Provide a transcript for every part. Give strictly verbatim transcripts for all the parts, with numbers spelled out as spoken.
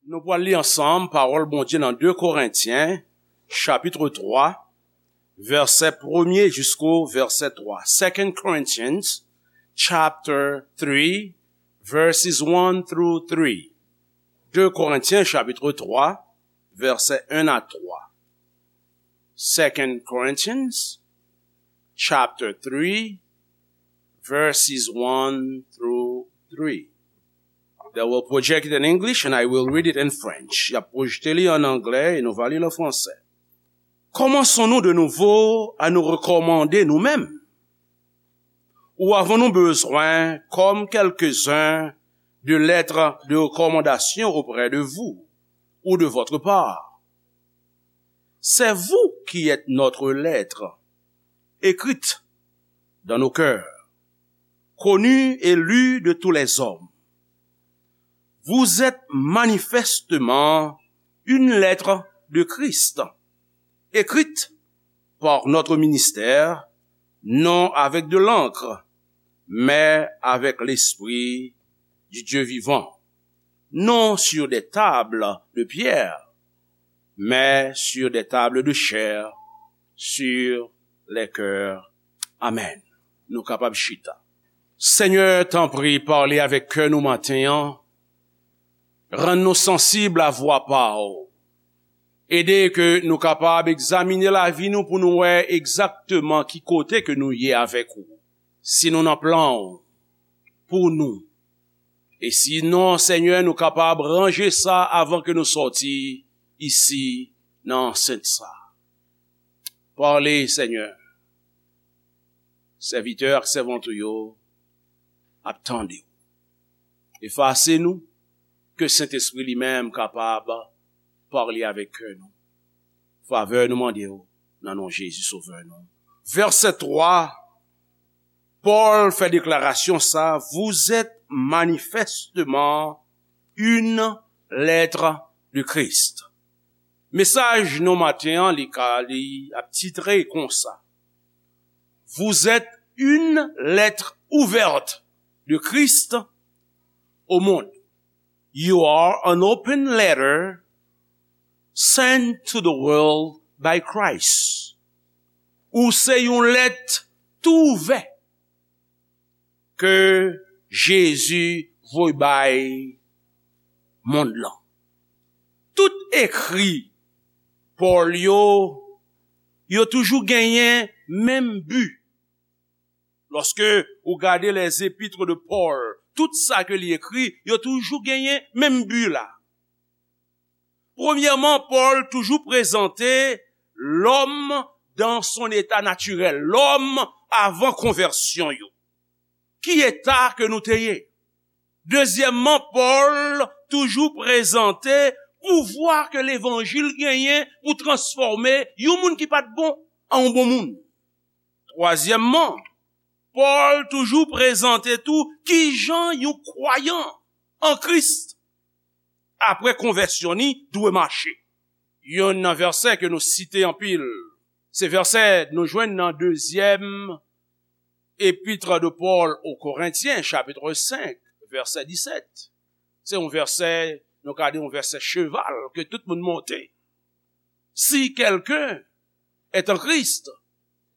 Nou pral li ansanm pawòl Bondye nan de Korentyen, chapit twa, vèsè premye jisko vèsè twa. Second Corinthians, chapter three, verses one through three. De Korentyen, chapit twa, vèsè en a twa. Second Corinthians, chapter three, verses one through three. They will project it in English and I will read it in French. Y ap pwojte li an anglè e nou va li l an fransè. Commençons-nous de nouveau à nous recommander nous-mêmes? Ou avons-nous besoin, comme quelques-uns, de lettres de recommandation auprès de vous ou de votre part? C'est vous qui êtes notre lettre, écrite dans nos cœurs, connue et lue de tous les hommes. Vous êtes manifestement une lettre de Christ, écrite par notre ministère, non avec de l'encre, mais avec l'Esprit du Dieu vivant, non sur des tables de pierre, mais sur des tables de chair, sur les cœurs. Amen. Nou kapab chita. Senyè, tanpri, pale avèk kè nou maten an. Rann nou sansib a vwa pa w. Ede ke nou kapab egzamine lavi nou pou nou wè egzakteman ki kote ke nou ye avèk ou. Si nou nan plan w pou nou. E sinon, Senyè, nou kapab ranje sa avan ke nou sòti isi nan ansent sa. Pale, Senyè. Sèvitè ak sèvant ou yo ap tande w. Efase nou, ke Sentespri li menm kapab pale avèk kè nou. Favè nou mande w nan non Jezi Sovè nou. Vèsè twa, Pòl fè deklarasyon sa, vous êtes manifestement une lettre de Christ. Mesaj nou maten an, li ka, li ap titre konsa. Vous êtes une lettre ouverte de Christ au monde. You are an open letter sent to the world by Christ. Ou se yon lèt tou ouvè ke Jezi voye bay mond lan. Tout ekri Pòl yo, yo toujou genyen menm bi. Lòske ou gade les épîtres de Paul, tout sa ke li ekri, yo toujou genyen menm bi la. Premyèman, Pòl toujou prezante lòm dan son eta natirèl, lòm avan konvèsyon yo. Ki eta ke nou te ye? Dezyèmman, Pòl toujou prezante pouvwa ke levanjil genyen pou transfòme yon moun ki pa t bon an yon bon moun. Twazyèmman, Pòl toujou prezante tou kijan yon kwayan an Kris, apre konvèsyon ni, dwe mache. Youn nan vèsè ke nou site anpil, se vèsè nou jwenn nan dezyèm epit de Pòl o Korentyen, chapit senk, vèsè disèt. Se yon vèsè, nou ka di yon vèsè cheval ke tout moun monte. Si quelqu'un est en Christ,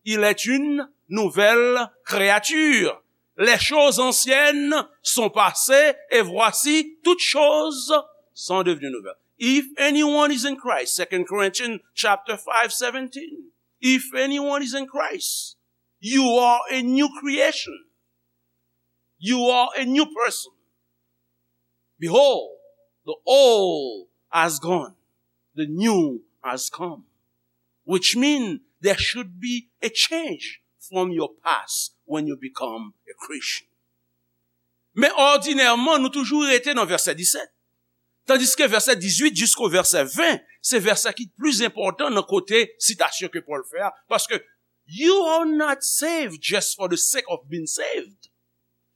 il est une nouvelle créature. Les choses anciennes sont passées et voici, toutes choses sont devenues nouvelles. If anyone is in Christ, Second Corinthians chapter five seventeen. If anyone is in Christ, you are a new creation. You are a new person. Behold, the old has gone, the new has come. Which means there should be a change from your past when you become a Christian. Men òdinèman, nou toujou rete nan vèsè disèt. Tandiske vèsè dizuit jisko vèsè ven, se vèsè ki pli enpòtan nan kote sitasyon ke Pòl fè a. Paske you are not saved just for the sake of being saved.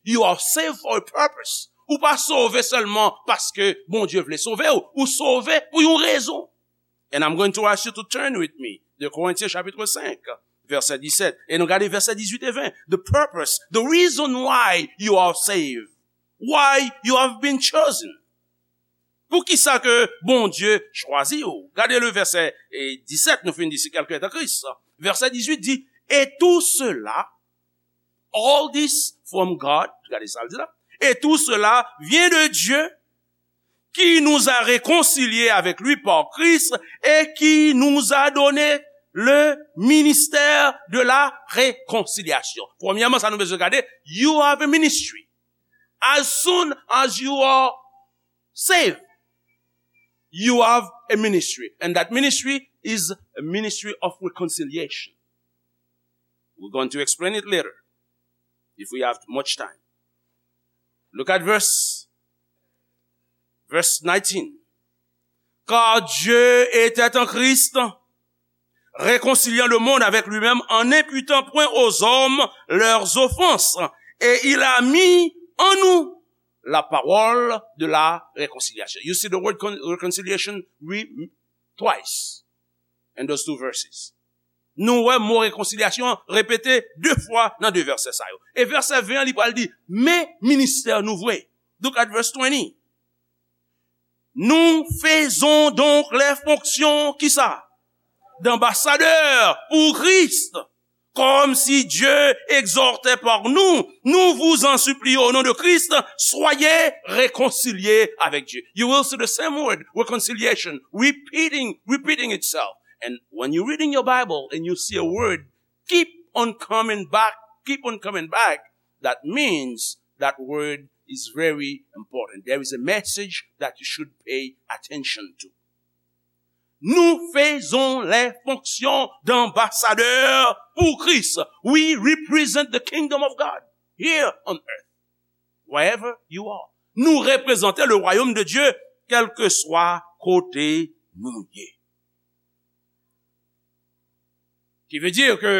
You are saved for a purpose. Ou pa sove sèlman paske Bondye vle sove w. Ou sove pou yon rezon. And I'm going to ask you to turn with me. De Korentyen chapit senk, vèsè disèt. E nou gade vèsè dizuit e ven. The purpose, the reason why you are saved, why you have been chosen. Poukisa ke Bondye chwazi w? Gade le vèsè, eh, disèt, nou fin di si kèlkun est en Christ. Vèsè dizuit di, et tout cela, all this from God, gade sa l di la, et tout cela vient de Dieu qui nous a réconciliés avec lui par Christ et qui nous a donné le ministère de la réconciliation. Premyèman, sa nou bezwen gade, you have a ministry. As soon as you are saved, you have a ministry. And that ministry is a ministry of reconciliation. We're going to explain it later, if we have much time. Look at verse, verse nineteen. Car Dieu était en Christ, réconciliant le monde avec lui-même en n'imputant point aux hommes leurs offenses. Et il a mis en nous la parole de la réconciliation. You see the word con- reconciliation re- twice in those two verses. Nou wè mo rekonsilyasyon an repete de fwa nan de vèsè sa yo. E vèsè ven an, li pral di, men ministè nou vre. Look at verse twenty. Nous faisons donc les fonctions, kisa? D'ambassadeurs pour Christ. Comme si Dieu exhortait par nous, nous vous en supplions au nom de Christ, soyez réconciliés avec Dieu. You will see the same word, reconciliation, repeating, repeating itself. And when you're reading your Bible and you see a word, keep on coming back, keep on coming back, that means that word is very important. There is a message that you should pay attention to. Nous faisons les fonctions d'ambassadeurs pour Christ. We represent the kingdom of God here on earth, wherever you are. Nou reprezante le royaume de Dieu, kèlkeswa kote nou ye. Ki vle di ke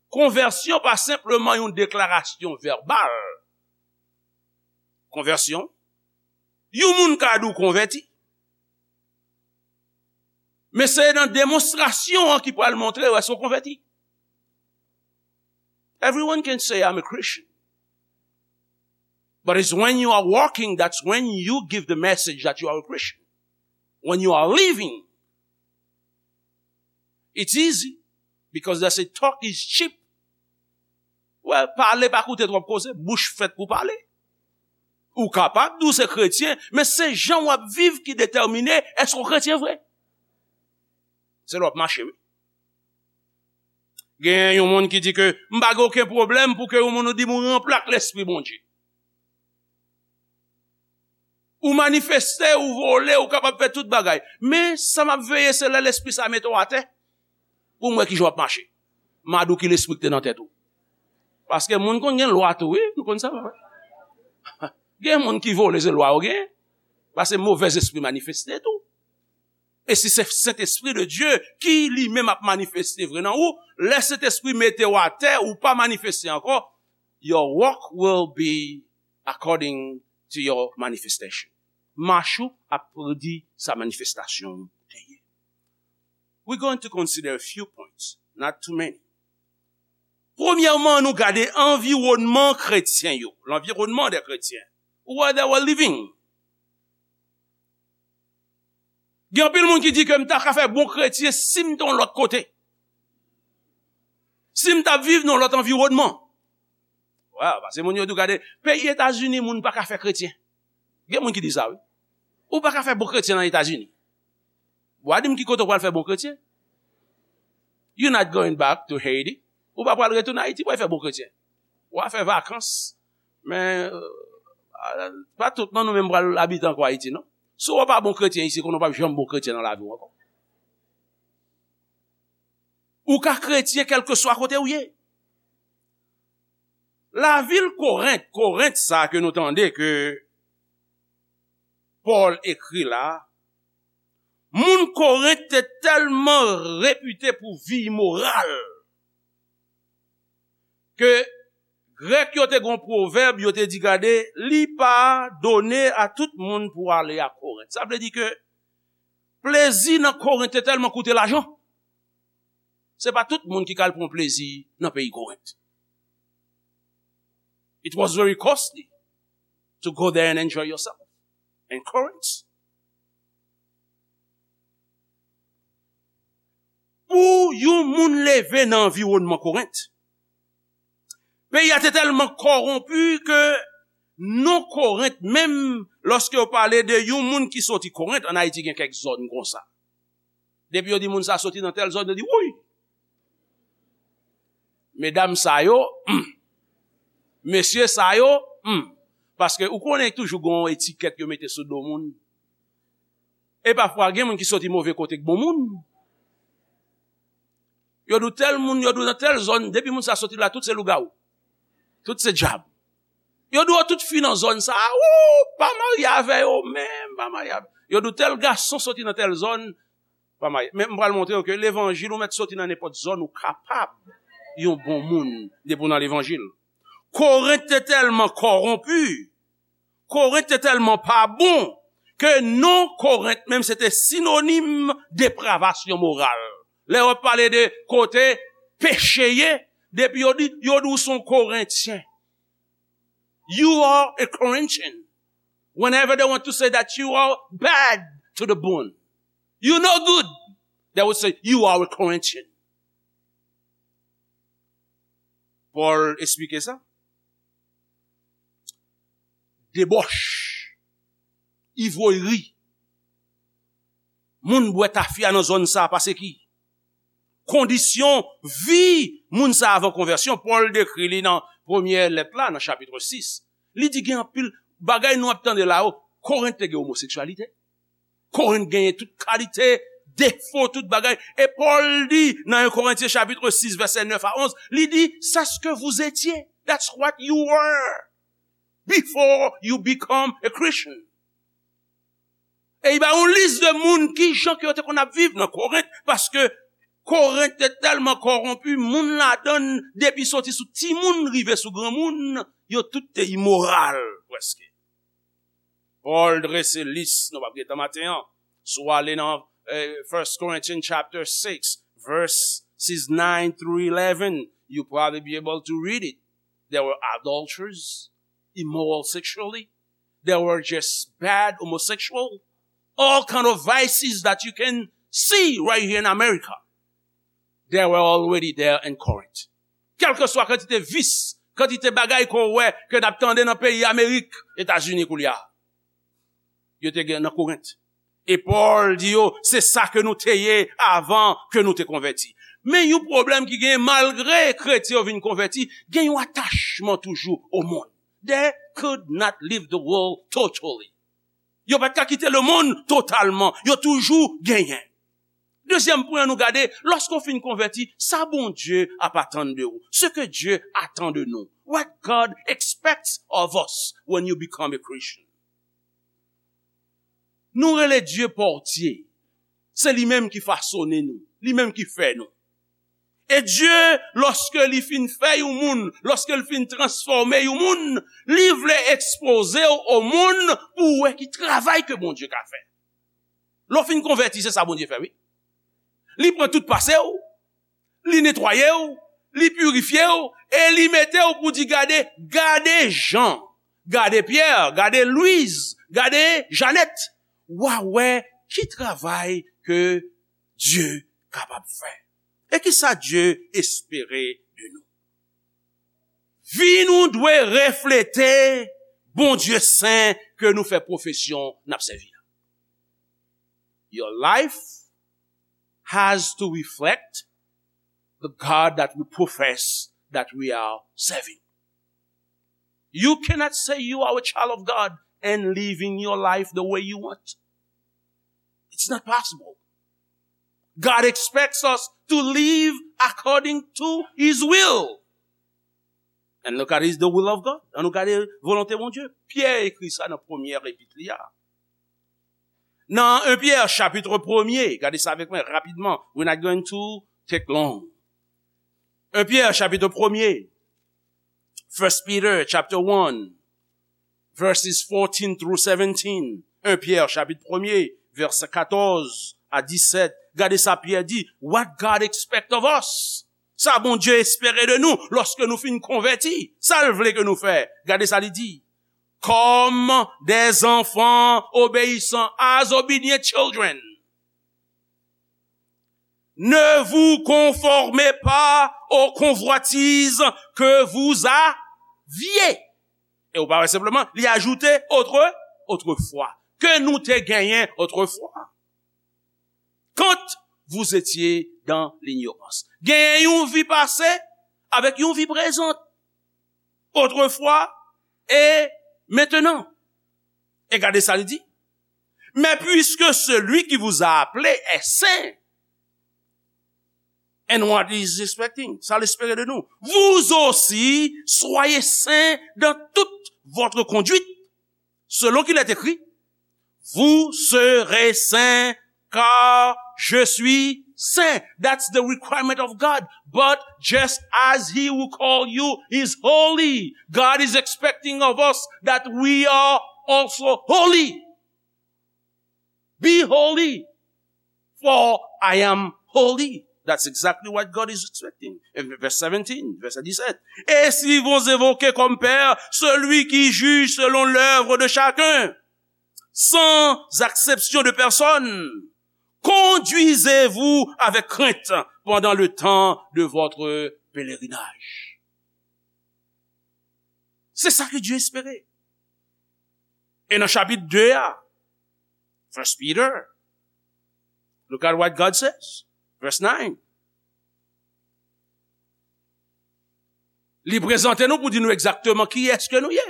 konvèsyon pa senpleman yon deklarasyon vèbal. Konvèsyon, yon moun ka di w konvèti. Men se nan demonstrasyon an ki pral montre w èske w konvèti. Everyone can say, "I'm a Christian." But it's when you are walking, that's when you give the message that you are a Christian. When you are living, it's easy because they say talk is cheap. Well, pale pa koute twòp koze, bouch fèt pou pale. Ou kapab di w se kretyen, men se jan w ap viv ki detèmine èske w kretyen vre. Se lè w ap mache, wi. Gen yon moun ki di ke m pa gen okenn pwoblèm pou ke yon moun ou di m ou ranple ak Lespri Bondye. Ou manifeste, ou vole, ou kapab fè tout bagay. Men sa m ap veye se lè lespri sa mete w atè. Pou m wè kijan w ap mache. M a di w ki lespri ki te nan tèt ou. Paske moun konn gen lwa tou, wi. Nou konn sa, wi. Gen moun ki vole, se lwa yo gen. Paske movèzespri manifeste tou. E si se Sentespri de Dye ki li menm ap manifeste vre nan ou, lè Sentespri mete w atè, ou pa manifeste ankò, your walk will be according to your manifestation. Mach ou ap predi sa manifestasyon ou te ye. We're going to consider a few points, not too many. Premyèman, nou gade anviwònman kretyen yo, l'environnement des chrétiens, where they were living. Gen anpil moun ki di ke m ta ka fè bon kretyen si m te yon lòt kote. Si m t ap viv nan yon lòt anviwònman. Wè, paske moun yo di w gade, peyi Etazini, moun pa ka fè kretyen. Gen moun ki di sa, wi. Ou pa ka fè bon kretyen nan Etazini. W a di m ki kote w pral fè bon kretyen. You not going back to Haiti. Ou pa pral retounen Ayiti pou al fè bon kretyen. W a fè vakans. Men, euh, pa tout nan nou menm pral abite ankò Ayiti, non. Si w pa bon kretyen isi, konnen w p ap janm bon kretyen nan lavi w ankò. Ou ka kretyen kèlkeswa kote w ye. Lavil Korent, Korent sa ke nou tande ke Pòl ekri la, moun Korent te tèlman repite pou vi imoral ke Grèk yo te gen yon pwovèb, yo te di, gade, li pa done a tout moun pou ale a Korent. Sa vle di ke plezi nan Korent te tèlman koute lajan. Se pa tout moun ki ka al pran plezi nan peyi Korent. It was very costly to go there and enjoy yourself. in Corinth. Pou yon moun leve nan anviwònman Korent, peyi a te tèlman kòwonpi ke non Korent menm, lòske yo pale de yon moun ki soti Korent, ann Ayiti gen kèk zòn konsa. Depi yo di moun sa soti nan tèl zòn, yo di, "Wouy! Medam sa yo, hmm. Mesye sa yo, hmm." Paske ou konnen toujou gen yon etikèt yo mete sou do moun. E pafwa, gen moun ki soti move kote k bon moun. Yo di w tèl moun, yo di w nan tèl zòn, depi moun sa soti la, tout se lougawou. Tout se dyab. Yo di w tout fi nan zòn sa, ou pa marye avè yo menm, pa marye avè. Yo di w tèl gason soti nan tèl zòn, pa marye. Men m pral montre w ke levanjil ou mèt soti nan nenpòt zòn, ou kapab yon bon moun depi w nan levanjil. Korent te tèlman kòwonpi, Korent te tèlman pa bon, ke non Korent menm se te sinonim depravasyon moral. Lè yo ap pale de kote peche ye, depi yo di, yo di w se yon Korentyen. You are a Corinthian. Whenever they want to say that you are bad to the bone, you no good, they will say you are a Corinthian. Pòl esplike sa. Debòch, ivwayri. Moun bwè tafya nan zòn sa a pase ki? Kondisyon vi moun sa a avan konvèsyon, Pòl dekri li nan premyè lèt la, nan chapit sis. Li di gen anpil bagay nou ap tande la yo. Korent te gen omoseksyalite. Korent genyen tout kalite defo, tout bagay. E Pòl di nan en Korentyen chapit sis, vèsè nèf a onz, li di, "C'est ce que vous étiez. That's what you were before you become a Christian." E li ba yon lis de moun ki jan ke yo te konn ap viv nan Korent, paske Korent te tèlman kòwonpi, moun ladan l, depi soti sou timoun rive sou granmoun, yo tout te imoral, prèske. Pòl drese lis, nou p ap gen tan maten an. Si w ale nan eh, First Corinthians chapter six, verses nine through eleven, you probably be able to read it. There were adulterers, immoral sexually. There were just bad homosexual. All kind of vices that you can see right here in America. They were already there in Corinth. Kèlkeswa kantite vis, kantite bagay ke w wè ke n ap tande nan peyi Amerik, Etazini koulye a, yo te gen nan Korent. E Pòl di yo, se sa ke nou te ye avan ke nou te konvèti. Men yon pwoblèm ki gen, malgre kretyen yo vin konvèti, gen yon atachman toujou o monn. They could not leave the world totally. Yo pa t ka kite lemonn totalman. Yo toujou genyen. Dezyèm pwen an nou gade, lòske w fin konvèti, sa Bondye ap atann de ou. Ce que Dieu attend de nous. What God expects of us when you become a Christian. Nou rele Dye pòtye. Se li menm ki fasone nou. Li menm ki fè nou. E Dye, lòske li fin fè yon moun, lòske li fin transfòme yon moun, li vle ekspoze w o monn pou w wè ki travay ke Bondye ka fè. Lè w fin konvèti, se sa Bondye fè, wi. Li pran tout pase w, li netwaye w, li pirifye w, e li mete w pou di, gade, gade Jan, gade Pyè, gade Lwiz, gade Janèt. W a wè ki travay ke Dye kapab fè. E ki sa Dye espere de nou? Vi nou dwe reflete Bondye sen ke nou fè pwofesyon n ap sèvi a. Your life has to reflect the God that we profess that we are serving. You cannot say you are a child of God and living your life the way you want. It's not possible. God expects us to live according to his will. And look at his, the will of God. Ann nou gade volonte Bondye. Pyè ekri sa nan premyè epit li a. Nan en Pyè chapit premye, gade sa avèk mwen rapidman. We're not going to take long. En Pyè chapit premye, First Peter chapter one, verses fourteen through seventeen. En Pyè chapit premye, vèsè katòz a disèt. Gade sa Pyè di, what God expect of us. Sa Bondye espere de nou lòske nou fin konvèti. Sa l vle ke nou fè. Gade sa li di. comme des enfants obéissants, as obedient children. Ne vous conformez pas aux convoitises que vous aviez. E ou pa wè senpleman, li ajoute autre, autrefois. Ke nou te genyen autrefois. Quand vous étiez dans l'ignorance. Genyen yon vi pase avèk yon vi prezan. Autrefois et maintenant. E gade sa li di. Mais puisque celui qui vous a appelé est saint, and what is expecting? Sa l espere de nou. Vous aussi, soyez saints dans toute votre conduite, selon qu'il est écrit, vous serez saints, car je suis saint. That's the requirement of God. But just as he who called you is holy, God is expecting of us that we are also holy. Be holy, for I am holy. That's exactly what God is expecting. In verse seventeen, verset dix-sept. Et si vous invoquez comme Père celui qui juge selon l'œuvre de chacun, sans acception de personne, conduisez-vous avec crainte pendant le temps de votre pèlerinage. Se sa ke Dye espere. E nan chapit de a, First Peter, look at what God says. Verse nine. Li prezante nou pou di nou egzakteman kiyès ke nou ye.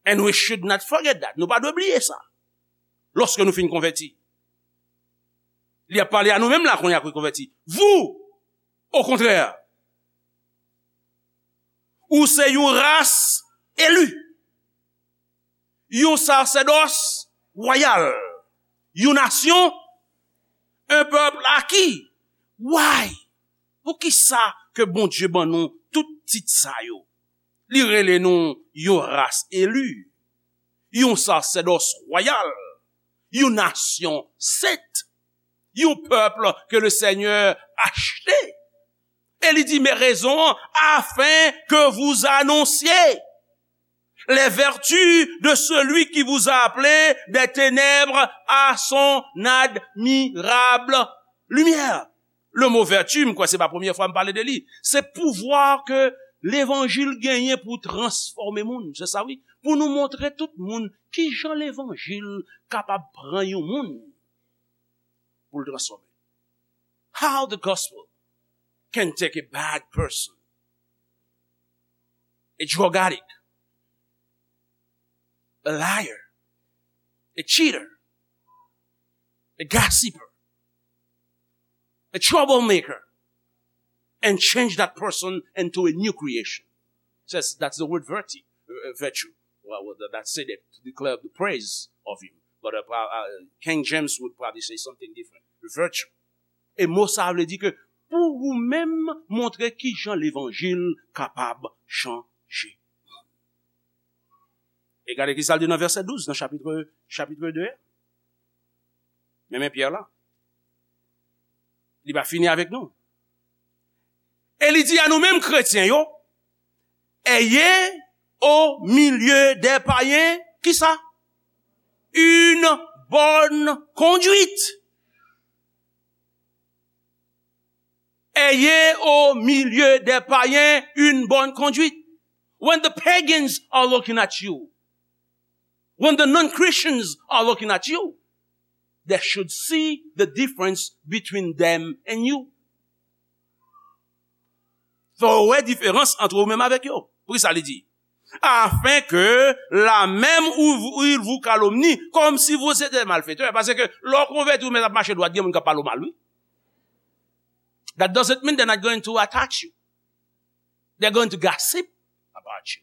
And we should not forget that. Nou pa dwe bliye sa. Lòske nou fin konvèti. Li ap pale a nou menm la kounye a ki konvèti. Vous, au contraire, ou se yon ras eli, yon sasèdòs wayal, yon nasyon, un peuple acquis. Why? Poukisa ke Bondye ban nou tout tit sa yo? Li rele nou yon ras eli, yon sasèdòs wayal, yon nasyon sent, yon pèp ke le Senyè achte. E li di, mais raison, afin que vous annonciez les vertus de celui qui vous a appelé des ténèbres à son admirable lumière. Le mo vèti, m kwè se pa premye fwa m pale de li. Se pouvwa ke levanjil genyen pou transfòme moun. Se sa wi. Pou nou montre tout moun kijan levanjil kapab pran yon moun pou l transfòme. How the gospel can take a bad person, a drug addict, a liar, a cheater, a gossiper, a troublemaker, and change that person into a new creation. Says that's the word virtue, uh, virtue. Well, well, that, that said it to declare the praise of him. But uh, pra- uh, King James would probably say something different. Virtue. E mo sa a vle di ke pou ou menm montre kijan levanjil kapab chanje. E gade ki sa l di nan vèsè douz nan chapit, chapit de a. Men men Pyè la. Li pa fini avèk nou. E li di a nou menm kretyen yo, ayez au milieu des païens, ki sa? Une bonne conduite. Ayez au milieu des païens une bonne conduite. When the pagans are looking at you, when the non-Christians are looking at you, they should see the difference between them and you. Fò yo wè diferans ant ou menm avèk yo. Poukisa li di? Afin que là même où vous- ils vous calomnient, comme si vous étiez malfaiteurs. Paske lè w konvèti ou menm ap mache dwat, gen moun k ap pale w mal, wi. That doesn't mean they're not going to attack you. They're going to gossip about you.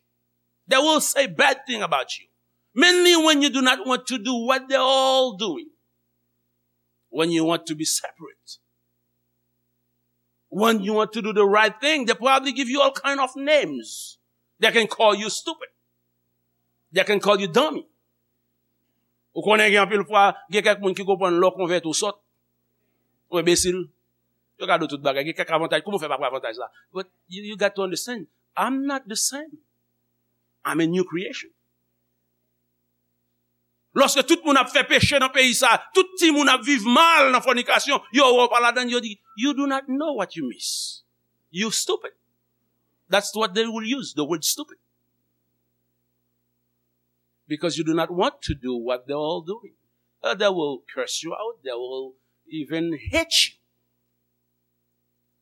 They will say bad thing about you. Mainly when you do not want to do what they're all doing. When you want to be separate. When you want to do the right thing, they probably give you all kind of names. They can call you stupid. They can call you dummy. Ou konnen gen anpil fwa, gen kèk moun ki konprann lè w konvèti ou sòt, ou enbesil. Yo gade w tout bagay, gen kèk avantaj. Kòman w fè pa pran avantaj la? But you, you got to understand, I'm not the same. I'm a new creation. Lòske tout moun ap fè peche nan peyi sa, tout timoun ap viv mal nan fònikasyon, yo wè w pa ladann, yo di, "You do not know what you miss. You stupid." That's what they will use, the word stupid. Because you do not want to do what they're all doing. Uh, they will curse you out, they will even hate you.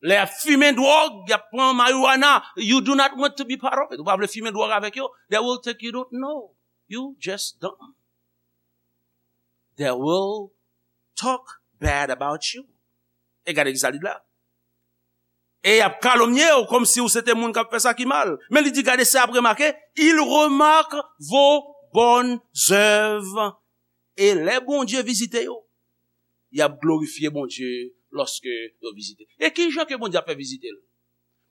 Lè y ap fimen dwòg, y ap pran marijuana, you do not want to be part of it. Ou pa vle fimen dwòg avèk yo. They will think you don't know. You just dumb. They will talk bad about you. E gade ki sa li di la. E y ap kalomnye w kòmsi w se te moun k ap fè sa ki mal. Men li di, gade, se ap remake, ils remarquent vos bonnes œuvres. E lè Bondye vizite yo, y ap glorifye Bondye lòske yo vizite. E ki jan ke Bondye ap fè vizite l?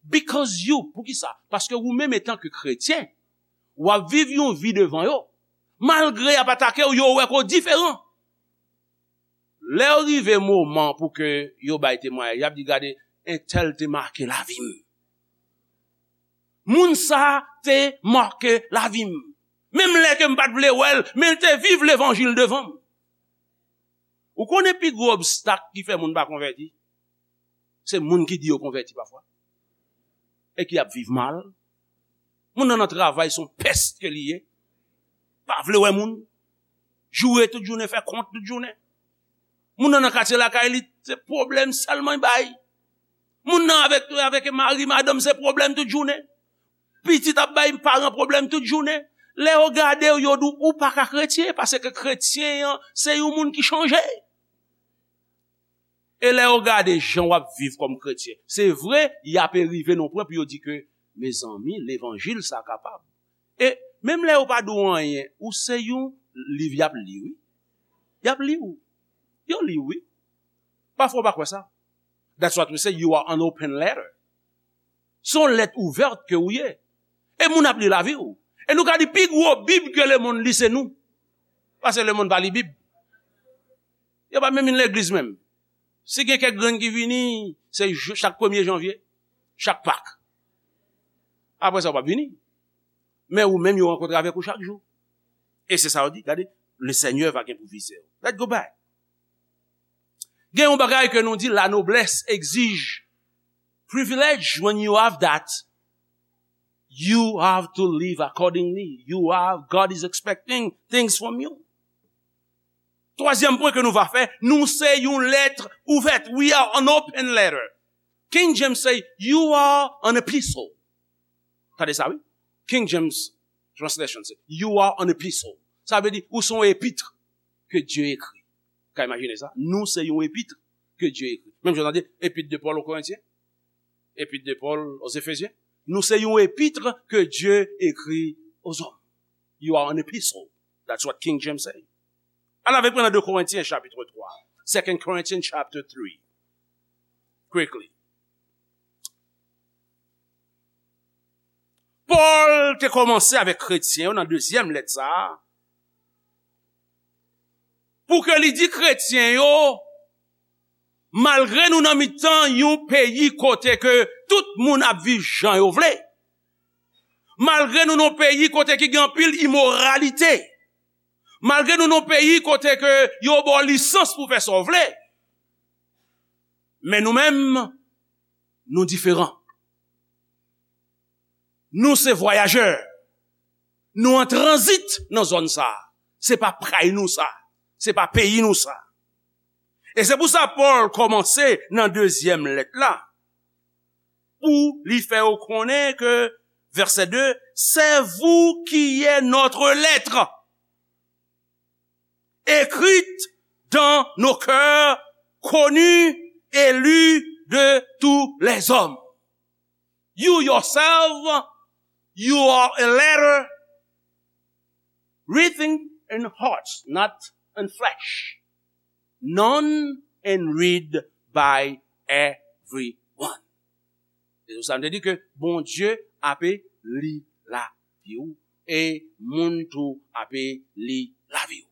Because you, poukisa? Paske ou menm etan ke kretyen, w ap viv yon vi devan yo. Malgre y ap atake w, yo wè ke w diferan. Lè yo rive moman pou ke yo bay temwayaj, y ap di, gade, entèl te make lavi m. Moun sa te make lavi m. Menm lè ke m pa t vle wè l, men l te viv levanjil devan m. Ou konnen pi gwo obstak ki fè moun pa konvèti? Se moun ki di yo konvèti pafwa. E ki ap viv mal. Moun nan nan travay se yon pès ke li ye. Pa vle wè moun. Joure tout jounen, fè kont tout jounen. Moun nan nan katye lakay li, se pwoblèm sèlman y bay. Moun nan avèk, avèk mari, madanm, se pwoblèm tout jounen. Pitit ap bay paran pwoblèm tout jounen. Lè yo gade w, yo di w, ou pa ka kretyen, paske kretyen an, se yon moun ki chanje. E lè yo gade jan w ap viv kòm kretyen, se vre, y ape rive nan pwen pou yo di ke, mezanmi, levanjil sa kapab. E menm lè yo pa di w anyen, ou se yon liv y ap li, wi. Y ap li w. Yo li w, wi. Pafwa w pa kwè sa. That's what we say, you are an open letter. Se yon lèt ouvèt ke ou ye. E moun ap li lavi w. E nou ka di pi gwo Bib ke lemonn li se nou. Paske lemonn pa li Bib. Yo pa menm vin legliz menm. Si gen kèk grenn ki vini, se jou, chak premye janvye, chak Pak. Apre sa, yo p ap vini. Men ou menm, yo rankontre avèk ou chak jou. E se sa yo di, gade, le Seigneur va gen pou vizye w. Let's go back. Gen yon bagay ke nou di, la noblesse exige privilege. When you have that, you have to live accordingly. You have, God is expecting things from you. Twazyèm pwen ke nou va fè, nou se yon lèt ouvèt. We are an open letter. King James say, you are an epistle. Tande sa, wi. King James Translation say, you are an epistle. Sa vle di, ou se yon epit ke Dye ekri. Ka imajine sa? Nou se yon epit ke Dye ekri. Menm jan w tande, epit de Paul aux Corinthiens, epit de Paul aux Éphésiens. Nou se yon epit ke Dye ekri aux hommes. You are an epistle. That's what King James say. Al avèk mwen nan de Korentyen chapit twa. Second Corinthians chapter three. Quickly. Pòl te kòmanse avèk kretyen yo nan dezyèm lèt sa a, pou ke li di kretyen yo, malgre nou nan mitan yon peyi kote ke tout moun ap viv jan yo vle, malgre nou nan yon peyi kote ki gen anpil imoralite, malgre nou nan yon peyi kote ke yo ba w lisans pou fè sa w vle, men nou menm, nou diferan. Nou se vwayajè. Nou an tranzit nan zòn sa a. Se pa kay nou sa. Se pa peyi nou sa. E se pou sa Pòl kòmanse nan dezyèm lèt la, pou li fè yo konnen ke, verset deux, c'est vous qui est notre lettre, écrite dans nos cœurs, connue et lue de tous les hommes. You yourself, you are a letter written in hearts, not in flesh, known and read by everyone. Se sa m te di ke Bondye ape li lavi w e moun tou ape li lavi w.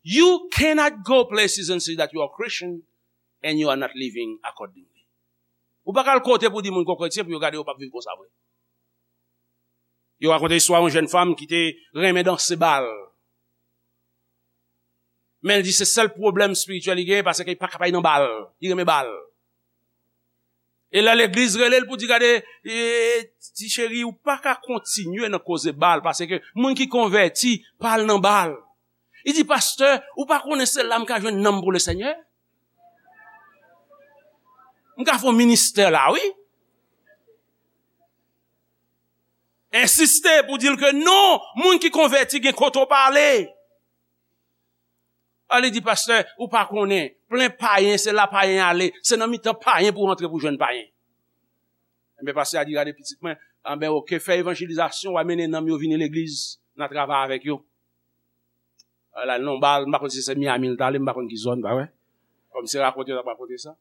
You cannot go places and say that you are Christian and you are not living accordingly. Ou pa ka al kote pou di moun ke w kretyen pou yo gade yo p ap viv konsa vre. Yo rakonte istwa yon jèn fanm ki te renmen danse bal. Men l di se sèl pwoblèm espirityèl li genyen, paske li pa ka pa nan bal. Li renmen bal. E lè legliz rele l pou di, "Gade, e, ti cheri, ou pa ka kontinye nan koze bal, paske moun ki konvèti pa al nan bal." Li di, "Pastè, ou pa konnen se la m ka jwenn nanm pou Lesenyè? M ka fè yon ministè la, wi." Ensiste pou di l ke non, moun ki konvèti gen kote w pa ale. A, li di, "Pastè, ou pa konnen, plen payen, se la payen ale, se nan mitan payen pou w antre pou jwenn payen." Enben, pastè a di, "Gade pitit mwen, anben, oke, fè evanjelizasyon, w a mennen nanm yo vini legliz, n a travay avèk yo." Ala, non, bal, m pa konn si se Miami l t ale, m pa konn ki zòn, pa vre? Kòm se rakonte yo t ap rakonte sa.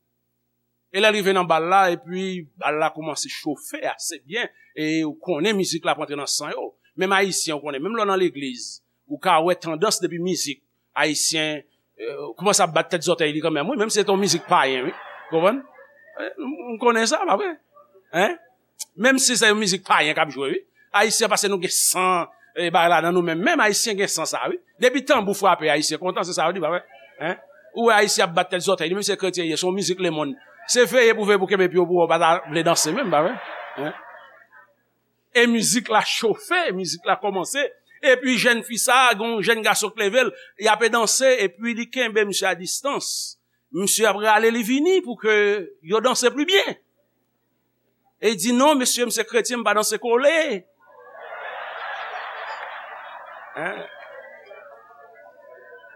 E lè l rive nan bal la, epi bal la kòmanse chofe ase byen, e ou konnen mizik la ap antre nan san yo. Menm Ayisyen, ou konnen, menm lè w nan legliz, ou ka wè tandans depi mizik, Ayisyen, eh, kòmanse ap bat tèt zòtèy li kanmenm, wi, menm si se te yon mizik payen, wi. Konprann? Eh, m, m konnen sa, pa vre? Hein? Menm si se yon mizik payen k ap jwe, wi. Ayisyen, paske nou gen san, eh, bagay la nan nou menm. Menm Ayisyen gen san sa, wi. Depi tanbou frape, Ayisyen kontan, se sa yo di, pa vre? Hein? Ou wè Ayisyen ap bat tèt zòtèy li, menm si se kretyen ye, se yon mizik lemonn. Se veye pou veye pou kenbe pye w pou wè w pa ta vle danse menm, pa vre? Hein? E mizik la chofe, mizik la kòmanse. Epi jèn fi sa, gen yon jèn gason k leve l, y ape danse, epi li kenbe misye a distans. Misye ap rale li vini pou ke yo danse pli byen. E li di, "Non, mesye, m se kretyen, m pa danse kole." Hein?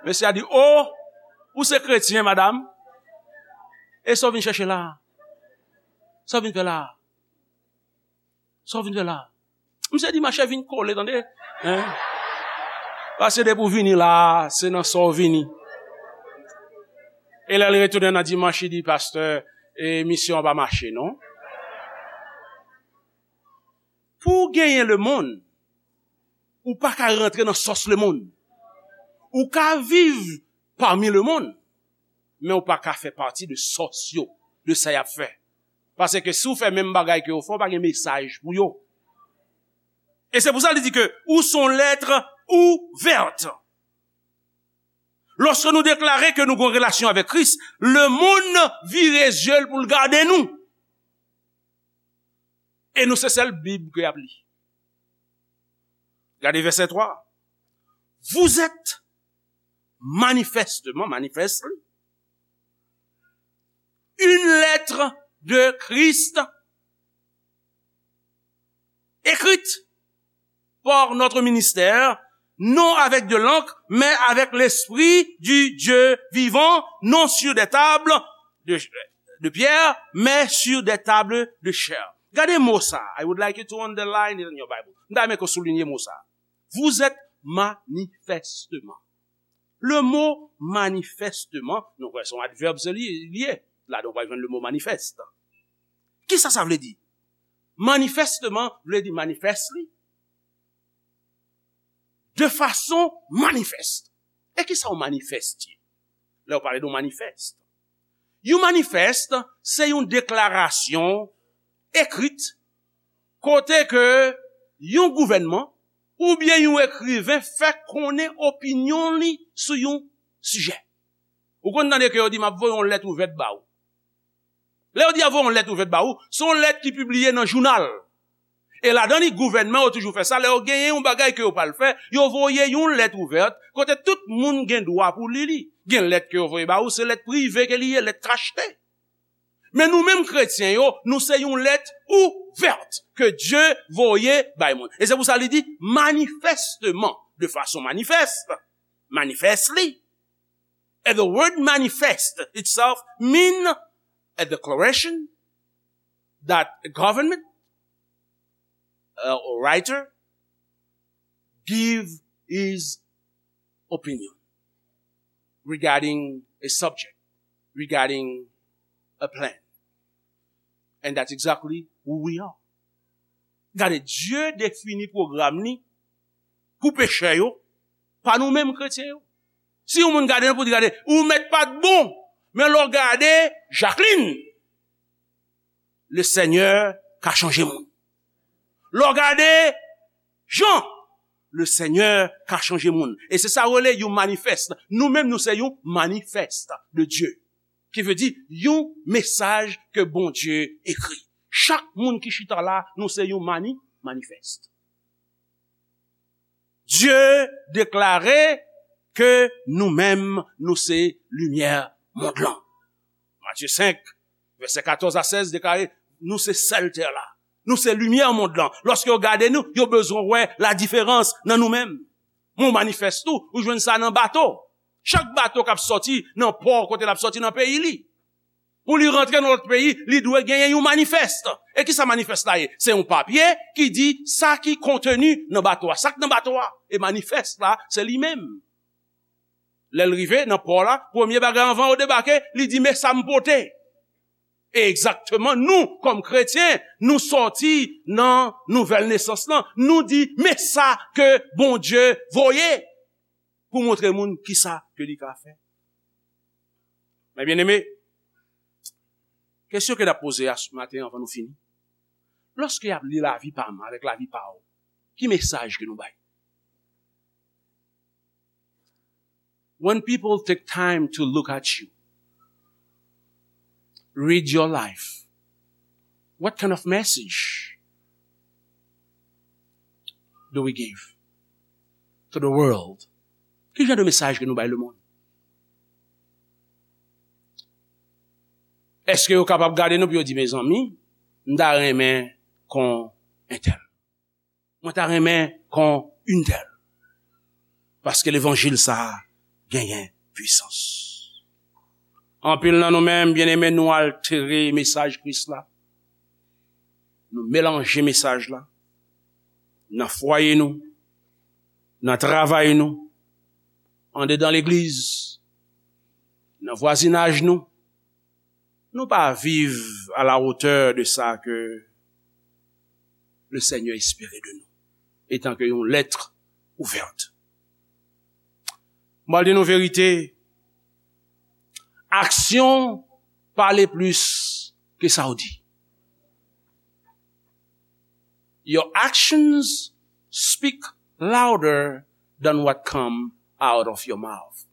Mesye a di, "O, ou se kretyen, madanm? E sa w vin chèche la? Sa w vin fè la?" Sa w vin fè la? Misye di, "Mache vin kole, tande? Hein? Paske depi w vini la, se nan sa w vini." E lè l retounen nan dimanch, li di, "Pastè, e misyon an pa mache, non." Pou w genyen lemonn, ou pa ka rantre nan sòs lemonn. Ou ka viv pami lemonn, men ou pa ka fè pati de sòs yo, de sa y ap fè. Paske si w fè menm bagay ke yo fè, w pa gen mesaj pou yo. E se pou sa li di ke ou se yon lèt ouvèt. Lòske nou deklare ke nou gen yon relasyon avèk Kris, lemonn vire zye l pou l gade nou. E nou se sèl Bib ke y ap li. Gade vèsè twa. Vous êtes manifestement, manifestly, une lettre de Christ écrite par notre ministère, non avec de l'encre, mais avec l'Esprit du Dieu vivant, non sur des tables de, de pierre, mais sur des tables de chair. Gade mo sa. I would like you to underline it in your Bible. M ta renmen ke w soulinye mo sa. Vous êtes manifestement. Le mo manifestement, nou kwè se yon advèb se li, li ye. Ladan w pral jwenn le mo manifest. Kisa sa vle di? Manifestement vle di manifestly. De fason manifest. E kisa yon manifest ye? Lè w pale de yon manifest. Yon manifest, se yon deklarasyon ekrit kote ke yon gouvènman oubyen yon ekriven fè konnen opinyon li sou yon sijè. Ou konn tande ke yo di, "M ap voye yon lèt ouvèt ba ou." Lè yo di y ap voye yon lèt ouvèt ba ou, se yon lèt ki pibliye nan jounal. E ladan li, gouvènman yo toujou fè sa. Lè yo genyen yon bagay ke yo pral fè, yo voye yon lèt ouvèt, kote tout moun gen dwa pou li li. Gen lèt ke yo voye ba ou, se lèt prive ke li ye, lèt kachte. Men nou menm kretyen yo, nou se yon lèt ouvèt ke Dye voye bay moun. E se pou sa li di, manifestement, de fason manifest, manifestly. And the word manifest itself mean a declaration that a government, uh, or writer give his opinion regarding a subject, regarding a plan. And that's exactly who we are. Gade, Dye defini pwogram li pou pechè yo, pa nou menm kretyen yo. Si yon moun gade nou pou di, "Gade, ou mèt pa t bon," men lè w gade Jacqueline, le Senyè ka chanje moun. Lè w gade Jan Lesenyè ka chanje moun. E se sa yo rele yon manifest. Nou menm, nou se yon manifest de Dye. Ki vle di yon mesaj ke Bondye ekri. Chak moun ki chita la, nou se yon mani, manifest. Dye deklare ke nou menm, nou se limyè mond lan. Matye senk, vèsè katòz a sèz deklare, nou se sèl tè la. Nou se limyè mond lan. Lòske yo gade nou, yo bezwen wè ladiferans nan nou menm. Men w manifest tou, ou jwenn sa nan bato. Chak bato k ap sòti nan pò kote l ap sòti nan peyi li. Pou li rantre nan lòt peyi, li dwe genyen yon manifest. E ki sa manifest la ye? Se yon papye ki di sa ki konteni nan bato a, sa k nan bato a. E manifest la, se li menm. Lè l rive nan pò la, premye bagay anvan yo debake, li di, "Men sa m pote." E egzakteman, nou, kòm kretyen, nou sòti nan nouvèl nesans lan, nou di, "Men sa ke Bondye voye pou montre moun ki sa ke li ka fè." Men byeneme, kesyon ke n ap poze a maten anvan nou fini, lòske y ap li lavi pa m avèk lavi pa w, ki mesaj ke nou bay? When people take time to look at you, read your life, what kind of message do we give to the world? Ki jan de mesaj ke nou bay lemonn? Èske yo kapab gade nou pou yo di, "Mezanmi, m ta renmen kon entèl. Mwen ta renmen kon entèl." Paske levanjil sa a genyen pwisans. Anpil nan nou menm, byeneme, nou altere mesaj Kris la. Nou melanje mesaj la nan fwaye nou, nan travay nou, andedan legliz, nan vwazinaj nou. Nou pa viv à la hauteur de sa ke le Seigneur espère de nous, etan ke yon lettre ouverte. Mwen di nou verite, aksyon pale plis ke sa w di. Your actions speak louder than what come out of your mouth.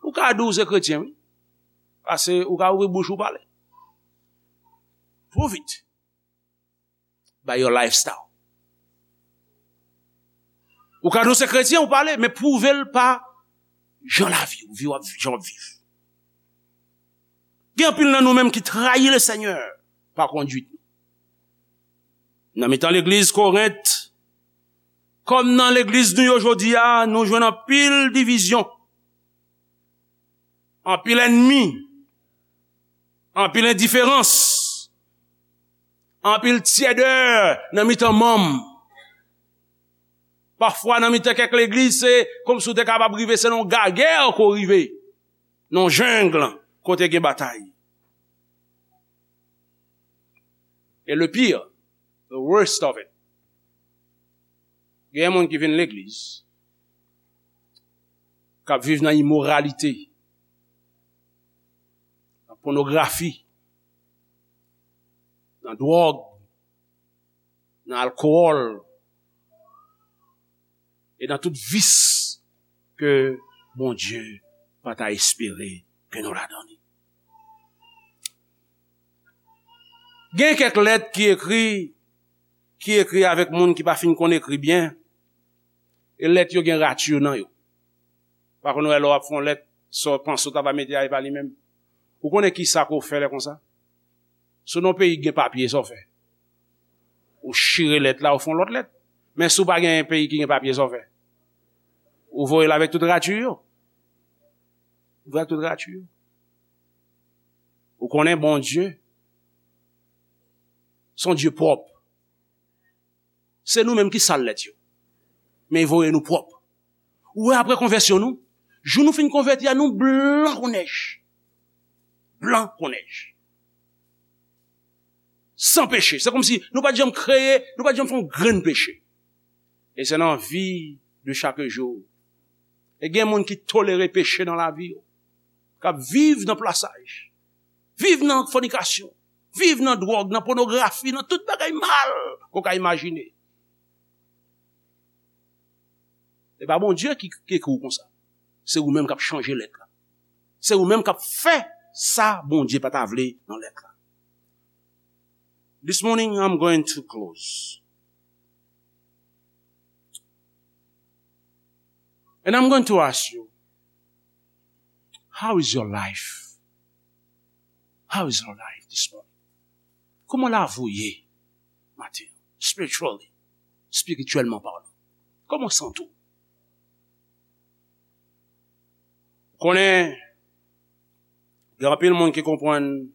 Ou ka di w se kretyen, wi. Pase ou ka ouvri bouch ou pale. Prove it by your lifestyle. Ou ka di w se kretyen, ou pale, men pwouve l pa jan lavi w, vi w ap, jan w ap viv. Gen anpil nan nou menm ki trayi Lesenyè pa konduit nou. Nan mitan legliz Korent, kòm nan legliz nou yo jodi a, nou jwenn anpil divizyon, anpil ènmi, anpil endiferans, anpil tyèdè nan mitan manm. Pafwa, nan mitan kèk legliz, se kòmsi w te kapab rive, se nan yon gagè ke w rive, nan yon jeng kote gen batay. E le pire, the worst of it, gen moun ki vin legliz, k ap viv nan imoralite, nan pònografi, nan dwòg, nan alkòl, e nan tout vis ke Bondye pa ta espere ke nou ladan li. Gen kèk lèt ki ekri, ki ekri avèk moun ki pa fin konn ekri byen, e lèt yo gen rati nan yo. Pa konn wè lè w ap fè yon lèt, sa w panse w ta va mete a, e pa li menm. Ou konnen ki sa ke w fè lè konsa? Si w nan yon peyi ki gen papye, sa w fè? Ou chire lèt la, ou fè yon lòt lèt. Men si w pa gen peyi ki gen papye, sa w fè? Ou voye l avèk tout rati yo. Ou voye avèk tout rati yo. Ou konnen Bondye, se yon Dye pwòp. Se nou menm ki sal lèt yo. Men li voye nou pwòp. Ou wè, apre konvèsyon nou, jou nou fin konvèti a, nou blan kon nèj. Blan kon nèj. San peche. Se kòmsi nou pa t janm kreye, nou pa t janm fè yon grenn peche. E se nan vi de chak jou. E gen moun ki tolere peche nan lavi yo, k ap viv nan plasaj, viv nan fònikasyon, viv nan dwòg, nan pònografi, nan tout bagay mal ke w ka imajine. Se pa Bondye ki, ki ekri w konsa. Se ou menm k ap chanje lèt la. Se ou menm k ap fè sa Bondye pa ta vle nan lèt la. This morning, I'm going to close. And I'm going to ask you, how is your life? How is your life this morning? Kòman lavi w ye maten? Spiritually, spirityèlman palan. Kòman w santi w? Ou konnen, gen anpil moun ki konprann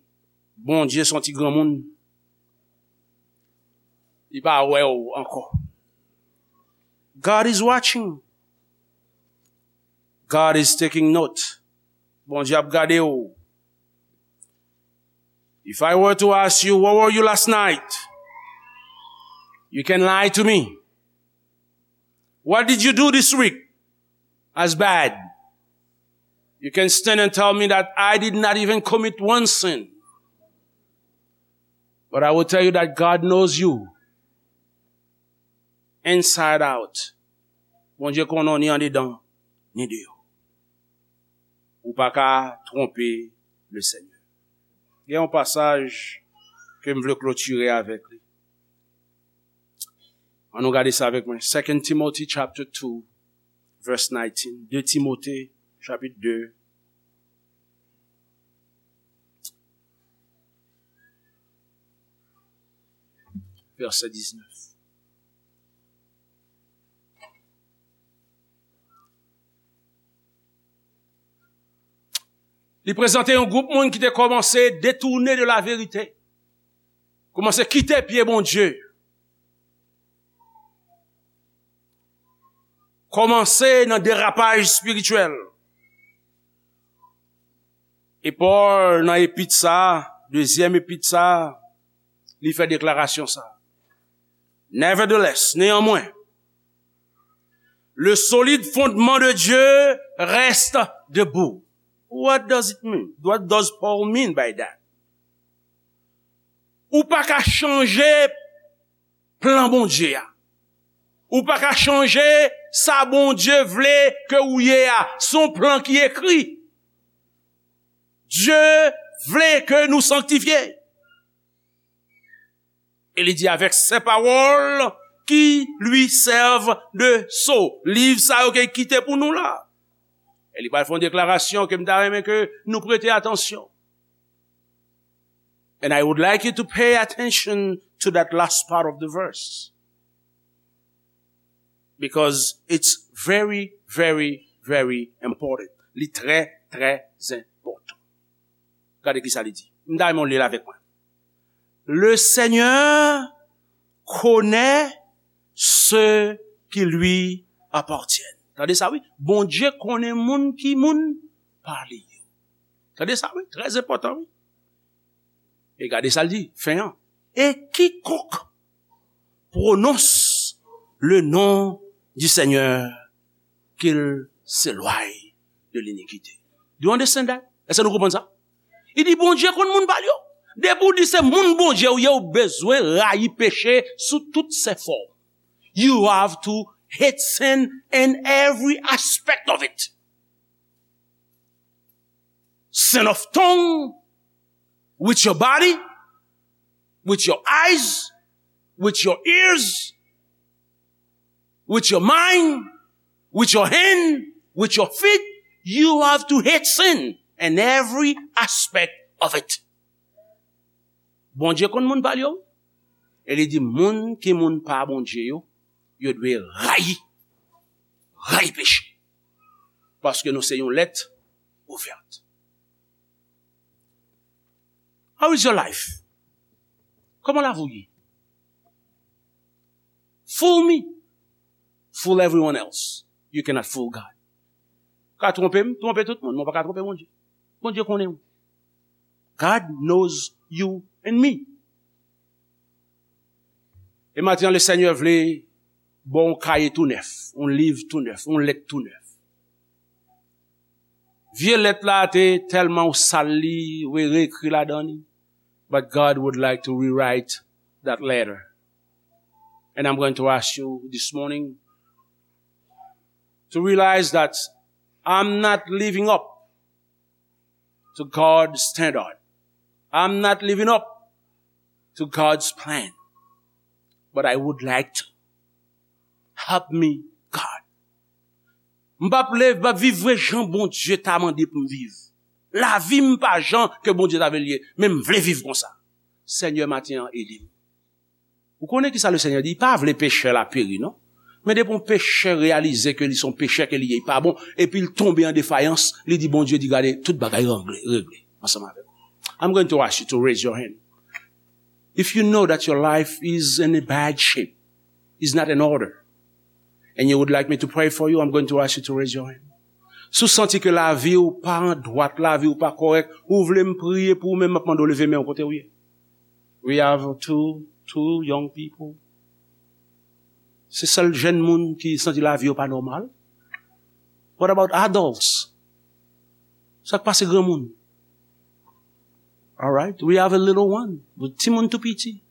Bondye se yon ti granmoun. Li pa wè w ankò. God is watching. God is taking note. Bondye ap gade w. If I were to ask you, "Where were you last night?" You can lie to me. What did you do this week as bad? You can stand and tell me that I did not even commit one sin. But I will tell you that God knows you inside out. Bondye konnen w ni andedan, ni deyò. Ou pa ka twonpe le Senyè. Gen yon pasaj ke m vle klotire avèk li. Ann nou gade sa avèk mwen. Second Timothy chapter two, verse nineteen. De Timote, chapit de, vèsè diznèf. Li prezante yon gwoup moun ki te kòmanse detounen de la verite. Kòmanse kite pye Bondye. Kòmanse nan derapaj espirityèl. E Pòl, nan epit sa a, dezyèm epit sa a, li fè deklarasyon sa a. Nevertheless, néanmoins, le solide fondement de Dieu reste debout. What does it mean? What does Paul mean by that? Ou pa ka chanje plan Bondye a. Ou pa ka chanje sa Bondye vle ke ou ye a. Se yon plan ki ekri. Dye vle ke nou sanktifye. E li di, avec ces paroles qui lui servent de sceau. Liv sa yo ke l kite pou nou la. E li pral fè yon deklarasyon ke m ta renmen ke nou prete atansyon. And I would like you to pay attention to that last part of the verse. Because it's very, very, very important. Li trè, trè enpòtan. Gade ki sa li di. M ta renmen w li l avèk mwen. Le Seigneur connaît ceux qui lui appartiennent. Tande sa, wi. Bondye konnen moun ki moun pa li yo. Tande sa, wi. Trè enpòtan, wi. E gade sa l di, fen an. Et quiconque prononce le nom du Seigneur, qu'il s'éloigne de l'iniquité. Do you understand that? Èske nou konprann sa? Li di Bondye konn moun pa l yo. Depi w di se moun Bondye ou ye, ou bezwen rayi peche sou tout se fòm. You have to hate sin in every aspect of it. Sin of tongue, with your body, with your eyes, with your ears, with your mind, with your hand, with your feet. You have to hate sin in every aspect of it. Bondye konn moun pa l yo. E li di moun ki moun pa Bondye yo, yo dwe rayi, rayi peche. Paske nou se yon lèt ouvèt. How is your life? Kòman lavi w ye? Fool me. Fool everyone else. You cannot fool God. Ou ka twonpe m, twonpe tout moun, men w pa ka twonpe Bondye. Bondye konnen w. God knows you and me. E maten an, le Senyè vle ba w yon kaye tou nèf, yon liv tou nèf, yon lèt tou nèf. Vye lèt la te tèlman ou sal li, ou reekri ladan li. But God would like to rewrite that letter. And I'm going to ask you this morning, to realize that I'm not living up to God's standard. I'm not living up to God's plan. But I would like to. Help me, God. M p ap leve, m p ap viv vre jan Bondye ta mande pou m viv. Lavi m pa jan ke Bondye ta vle l ye, men m vle viv konsa. Senyè, maten an, ede m. Ou konnen ki sa Lesenyè di? Li pa vle pechè la peri, non. Men depi yon pechè reyalize ke li se yon pechè ke li ye, li pa bon, epi l tonbe an defayans, li di Bondye di, "Gade, tout bagay regle, regle ansanm avè m." I'm going to ask you to raise your hand. If you know that your life is in a bad shape, is not in order, and you would like me to pray for you, I'm going to ask you to raise your hand. Si w santi ke lavi w pa an dwat, lavi w pa kòrèk, ou vle m priye pou ou, men m ap mande w leve men w kote w ye. We have two, two young people. Se sèl jèn moun ki santi lavi yo pa nòmal. What about adults? Sa k pase granmoun? All right, we have a little one. Timoun tou piti.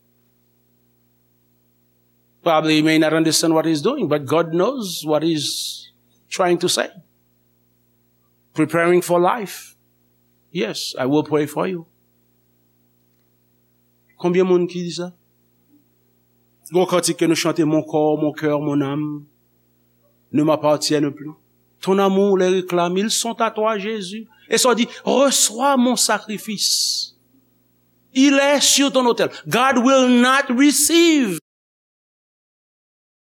Probably he may not understand what he's doing, but God knows what he's trying to say. Preparing for life. Yes, I will pray for you. Konbyen moun ki di sa? Gon kantik ke nou chante, "Mon corps, mon cœur, mon âme ne m'appartiennent plus. Ton amour les réclame, ils sont à toi, Jésus." E sa w di, "Reçois mon sacrifice. Il est sur ton autel." God will not receive